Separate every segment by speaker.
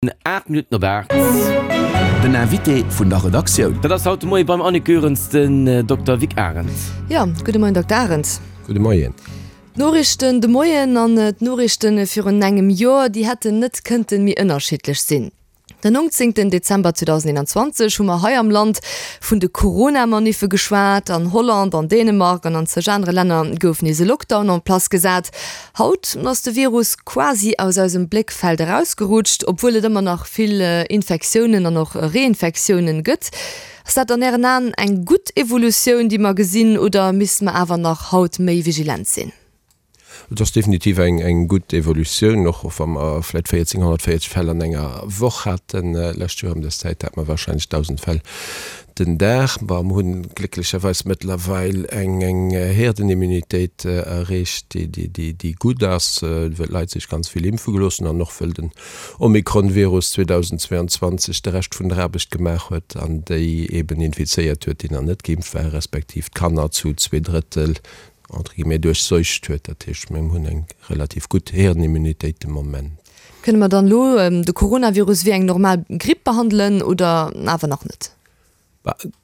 Speaker 1: 8 Minutten op 8.
Speaker 2: Den Invité vun der Redaktioun.
Speaker 1: Dat ass haut de Moie beim Annick Goerens den Dokter Vic Arendt.
Speaker 3: Jo, gudde Moien Dokter Arendt.
Speaker 4: Gudde Moien.
Speaker 3: D'Noriichten de Moien an d'Noriichte virun engem Joer, déi hätten net kënnte méi ënnerschiddlech sinn. Den 19 Dezember 2021 hu mer hei am Land vun de Corona-Maniffe geschwat. An Holland, an Dänemark an an zeg anere Länner gouf nees e Lockdown en place gesat. Haut ass de Virus quasi aus eisem Bléckfeld erausgerutscht, obwuel et ëmmer nach vill Infektiounen an och Reinfektiounen gëtt. Ass dat an Ären Aen eng gutt Evolutioun, déi mer gesinn, oder misste mer awer nach haut méi vigilent sinn?
Speaker 4: Et ass definitiv eng gutt Evolutioun, och wa mer vläicht 1.440 Fäll an enger Woch haten. Lescht Joer ëm dës Zäit hate mer warscheinlech 1.000 Fäll. Den Dag. Mer hunn glécklecherweis mëttlerweil eng Herdenimmunitéit erreecht, déi gutt ass, well d'Leit sech ganz vill impfe gelooss hunn an och wëll den Omikron-Virus 2022 de Rescht vun der Aarbecht gemaach huet an déi eben infizéiert huet, déi nach net geimpft waren, respektiv d'Kanner zu zweedrëttel, entre guillemets, duerchseucht huet. Dat heescht, mir hunn eng relativ gutt Herdenimmunitéit de Moment.
Speaker 3: Kënne mer dann elo de Coronavirus wéi eng normal Gripp behandelen oder awer nach net?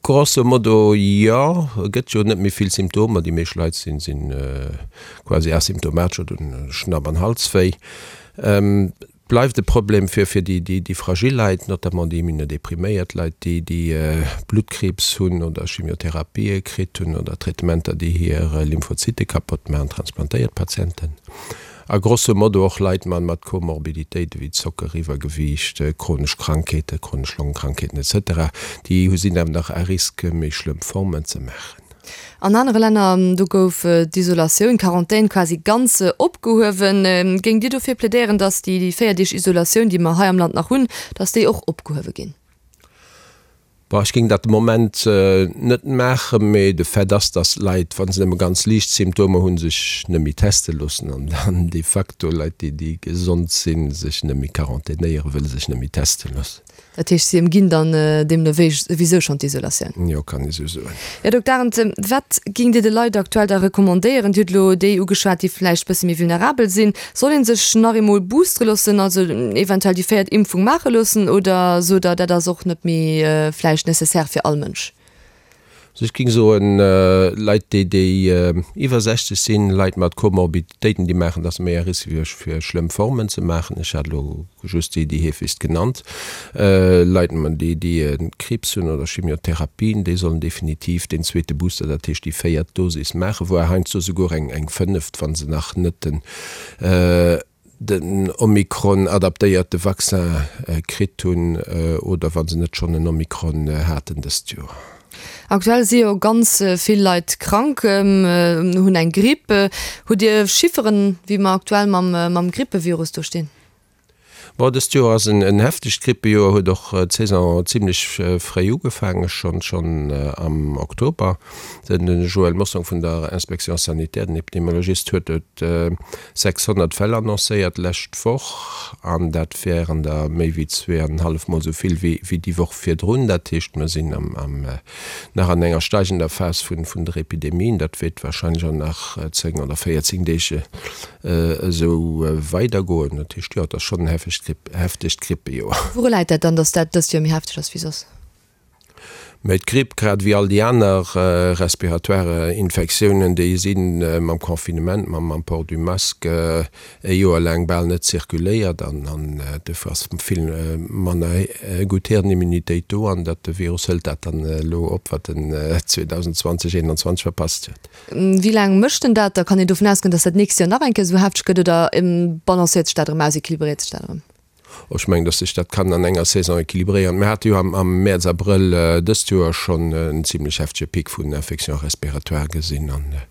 Speaker 4: Grosso modo jo. Et gëtt jo net méi vill Symptomer. Déi meescht Leit si quasi asymptomatesch oder hunn Schnapp an Halswéi. Et bleift e Problem fir déi fragil Leit, notamment déi immunodepriméiert Leit, déi déi Bluttkriibs hunn oder Chimiotherapië kritt hunn oder Traitementer, déi hir Lymphozyte kapott maachen, transplantéiert Patienten. A grosso modo och Leit mat Komorbiditéiten, wéi Zocker, Iwwergewiicht, chronesch Krankheeten, chronesch Longekrankheeten etc, déi sinn awer nach à risque, méi schlëmm Formen ze maachen.
Speaker 3: An anere Länner, do gouf d'Isolatioun, d'Quarantän quasi ganz opgehuewen. Géingt Dir dofir plädéieren, datt déi 4 Deeg Isolatioun, déi mer hei am Land nach hunn, datt déi och opgehuewe ginn?
Speaker 4: Bon, ech géing dat de Moment net maachen, mee de Fait ass, datt Leit, wa se nëmme ganz liicht Symptomer hunn, sech net méi teste loossen an dann de facto Leit, déi déi gesond sinn, sech net méi quarantänéieren, wëll se sech net méi teste loossen.
Speaker 3: Dat heescht, si ëmginn dann deemno wéi souwisou schonn d'Isolatioun?
Speaker 4: Jo, kann ee sou soen.
Speaker 3: Här Dokter Arendt, wat géingt Dir de Leit aktuell da recommandéieren? Dir hutt elo déi ugeschwat, déi vläicht bësse méi vulnerabel sinn. Soll een sech nach eemol boostere loossen, also eventuell déi véiert Impfung maache loossen, oder sot Der, dat ass och net méi vläicht nécessaire fir all Mënsch?
Speaker 4: Also ech géing soen, Leit déi déi iwwer 60 sinn, Leit mat Komorbiditéiten, déi maachen, dass méi à risque fir fir schlëmm Formen ze maachen. Ech hat elo just déi déi heefegst genannt. Leit déi déi Kriibs hunn oder Chimiotherapien, déi sollen definitiv deen zweete Booster, dat heescht déi véiert Dosis maachen, voire heiansdo souguer eng eng fënneft, wa se nach net den den Omikron-adaptéierte Vaccin kritt hunn oder wa se net schonn en Omikron haten dëst Joer.
Speaker 3: Aktuell si jo ganz vill Leit krank, hunn eng Gripp. Hutt Dir Chifferen, wéi mer aktuell mam Grippevirus do stinn?
Speaker 4: Bon, dëst Joer ass en heftegt Grippejoer, huet och d'Saison zimmlech fréi ugefaangen, schonn am Oktober. Den Joël Mossong vun der Inspection sanitaire, den Epidemiologist, huet et 600 Fäll annoncéiert d'lescht Woch, an dat wären der méi wéi zweeanenhallef Mol esou vill wéi déi Woch virdrun. Dat heescht, mer sinn nach an enger steigender Phas vun der Epidemie. Dat wäert warscheinlech och nach 10 oder 14 Deeg esou weidergoen. Dat heescht, jo, et ass schonn en heftegt Grippejoer.
Speaker 3: Wouru läit dat dann, datt dat dëst Joer méi hefteg ass wéi soss?
Speaker 4: Mä d'Gripp, grad ewéi all déi aner respiratoire Infektiounen, déi si mam Confinement, mam Port du masque e Joer laang bal net zirkuléiert an dofir ass vill manner gutt Herdenimmunitéit do an dat de Virus hëlt dat dann elo op, wat en 2020, 2021 verpasst huet.
Speaker 3: Wéi laang mécht en dat? Da kann een dovun ausgoen, datt dat d'nächst Joer nach eng Kéier esou hefteg gëtt oder balancéiert sech dat erëm aus, equilibréiert sech dat erëm?
Speaker 4: Ech mengen, datt sech dat kann an enger Saison equilibréieren. Mir hate jo am Mäerz, Abrëll dëst Joer schonn en zimlech heftege Pic vun Infections respiratoires gesinn an ech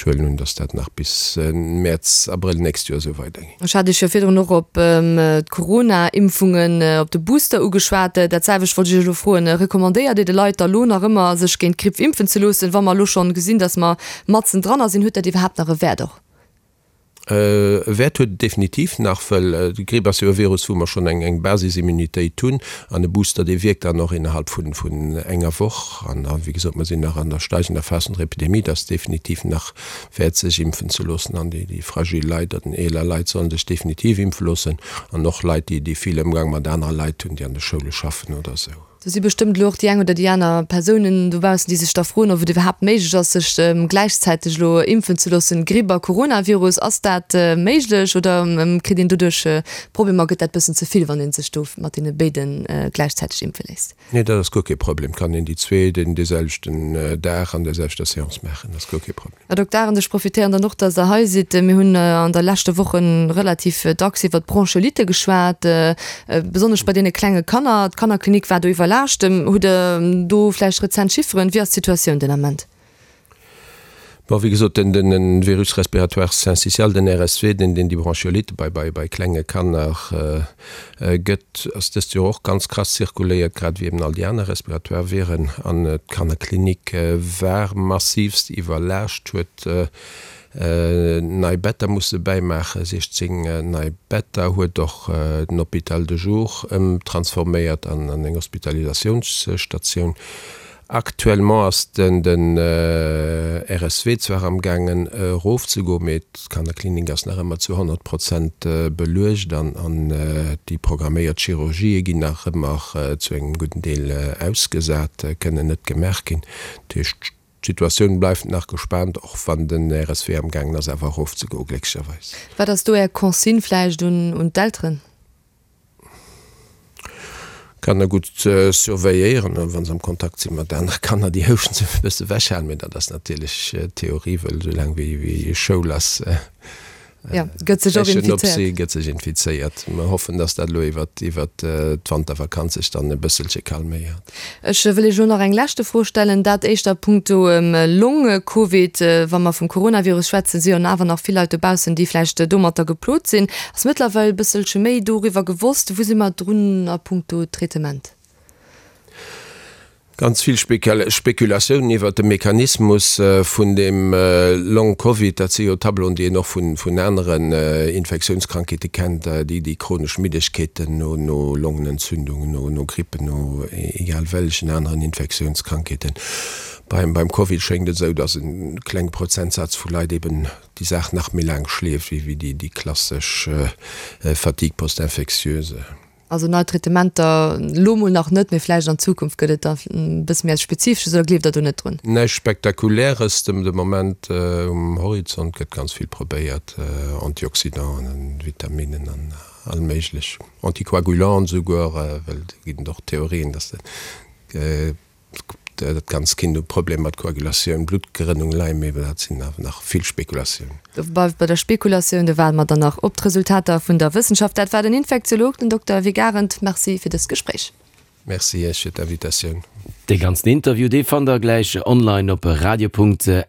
Speaker 4: huelen un, datt dat nach bis Mäerz, Abrëll d'nächst Joer esou weidergeet.
Speaker 3: Ech hat Iech jo virdrun och op d'Corona-Impfungen, op de Booster ugeschwat. Dat selwecht wollt ech Iech elo froen. Recommandéiert Dir de Leit da lo nach ëmmer, sech géint d'Gripp impfen ze loossen, wa mer elo schonn gesinn, datt mer matzen dranner sinn? Huet dat iwwerhaapt nach e Wäert och?
Speaker 4: E Wäert huet et definitiv nach, well d'Gripp ass jo e Virus, wou mer schonn eng Basisimmunitéit hunn. An e Booster, dee wierkt dann och innerhalb vun enger Woch. An wéi gesot, mer sinn nach an der steigender Phas vun der Epidemie. Et ass definitiv nach wäert, sech impfen ze loossen. An déi fragil Leit oder den eeler Leit solle sech definitiv impfe loossen. An och Leit, déi vill Ëmgang mat anere Leit hunn, déi an de Schoule schaffen oder esou.
Speaker 3: Do si bestëmmt elo och déi eng oder déi aner Persounen dobaussen, déi sech da froen, ob et iwwerhaapt méiglech ass, sech gläichzäiteg elo impfen ze loossen, Gripp a Coronavirus. Ass dat méiglech oder kritt een doduerch Problemer? Gëtt dat bëssen ze vill, wann ee sech do mat deene béide gläichzäiteg impfe léisst?
Speaker 4: Nee, dat ass guer kee Problem. Kann een déi zwee den deeselwechten Dag an der selwechter Seance maachen. Dat ass guer kee Problem.
Speaker 3: Här Dokter Arendt, ech profitéieren dann och, dass Der hei sidd. Mir hunn an der leschte Woche relativ dacks iwwert d'Bronchiolite geschwat, besonnesch bei deene klenge Kanner. D'Kannerklinik war do iwwerlaascht. Hutt Der do vläicht rezent Chifferen? Wéi ass d'Situatioun den Ament?
Speaker 4: Bon, wéi gesot, den Virus respiratoire syncytial, den RSV, deen déi Bronchiolite bei klenge Kanner gëtt, ass dëst Joer och ganz krass zirkuléiert, grad ewéi eben all déi aner respiratoire Viren. An d'Kannerklinik war massivst iwwerlaascht, huet nei Better musse bäimaachen, 16 nei Better, huet och den Hôpital de jour ëmtransforméiert an eng Hospitalisatiounsstatioun. Actuellement ass den RSW zwar am gaangen erof ze goen, mee d'Kannerklinik ass nach ëmmer zu 100 Prozent beluecht an déi programméiert Chirurgië ginn nach ëmmer zu engem gudden Deel ausgesat, kënnen net gemaach ginn. Dat heescht, d'Situatioun bleift nach gespaant, och wann den RSW am gaangen ass awer erof ze goen, glécklecherweis.
Speaker 3: Wat ass do Är Consigne vläicht un d'Elteren?
Speaker 4: Kanner gutt surveilléieren an wa se am Kontakt si mat anere Kanner, déi houschten, se e bësse wechhalen. Mee dat ass natierlech Theorie, wëll esou laang wéi Schoul ass,
Speaker 3: gëtt sech och infizéiert.
Speaker 4: Gëtt sech infizéiert. Mer hoffen, dass dat elo iwwert d'Wantervakanz sech dann e bësselche calméiert.
Speaker 3: Ech wëll Iech elo nach eng leschte Fro stellen, dat éischter a punkto Long-Covid. Wa mer vum Coronavirus schwätzen, si jo awer nach vill Leit dobaussen, déi vläicht domatter geplot sinn. Ass mëttlerweil e bësselche méi doriwwer gewosst? Wou si mer drun a punkto Traitement?
Speaker 4: Ganz vill Spekulatiounen iwwert de Mechanismus vun dem Long-Covid. Dat si jo Tableauen, déi een och vun aneren Infektiounskrankheete kennt, déi chronesch Middegkeeten no Longenentzündungen, no Grippen, no egal wellechen aneren Infektiounskrankheeten. Beim Covid schéngt et esou, datt e klenge Prozentsaz vu Leit eben déi Saach nach méi laang schleeft wéi déi klassesch Fatigue post-infectieuse.
Speaker 3: Also nei Traitementer elo mol nach net, mee vläicht an Zukunft gëtt et da e bësse méi eppes Spezifesches, oder gleeft Der do net drun?
Speaker 4: Näischt Spektakuläres de Moment um Horizont, gëtt ganz vill probéiert, Antioxydanten, Vitaminen an all méiglech, Anticoagulanten esouguer, well do ginn et och Theorien, datt de Dat ganzt Kind huet Problemer mat Koagulatioun, Bluttgerënnung, Lyme, mee dat sinn awer nach vill Spekulatiounen.
Speaker 3: Do bleift bei der Spekulatioun, do waarde mer dann nach op d'Resultater vun der Wëssenschaft. Dat war den Infektiolog, den Dokter Vic Arendt. Merci fir dëst Gespréich.
Speaker 4: Merci Iech fir d'Invitatioun.
Speaker 1: Dee ganzen Interview, dee fannt der gläich online op radio.rtl.lu.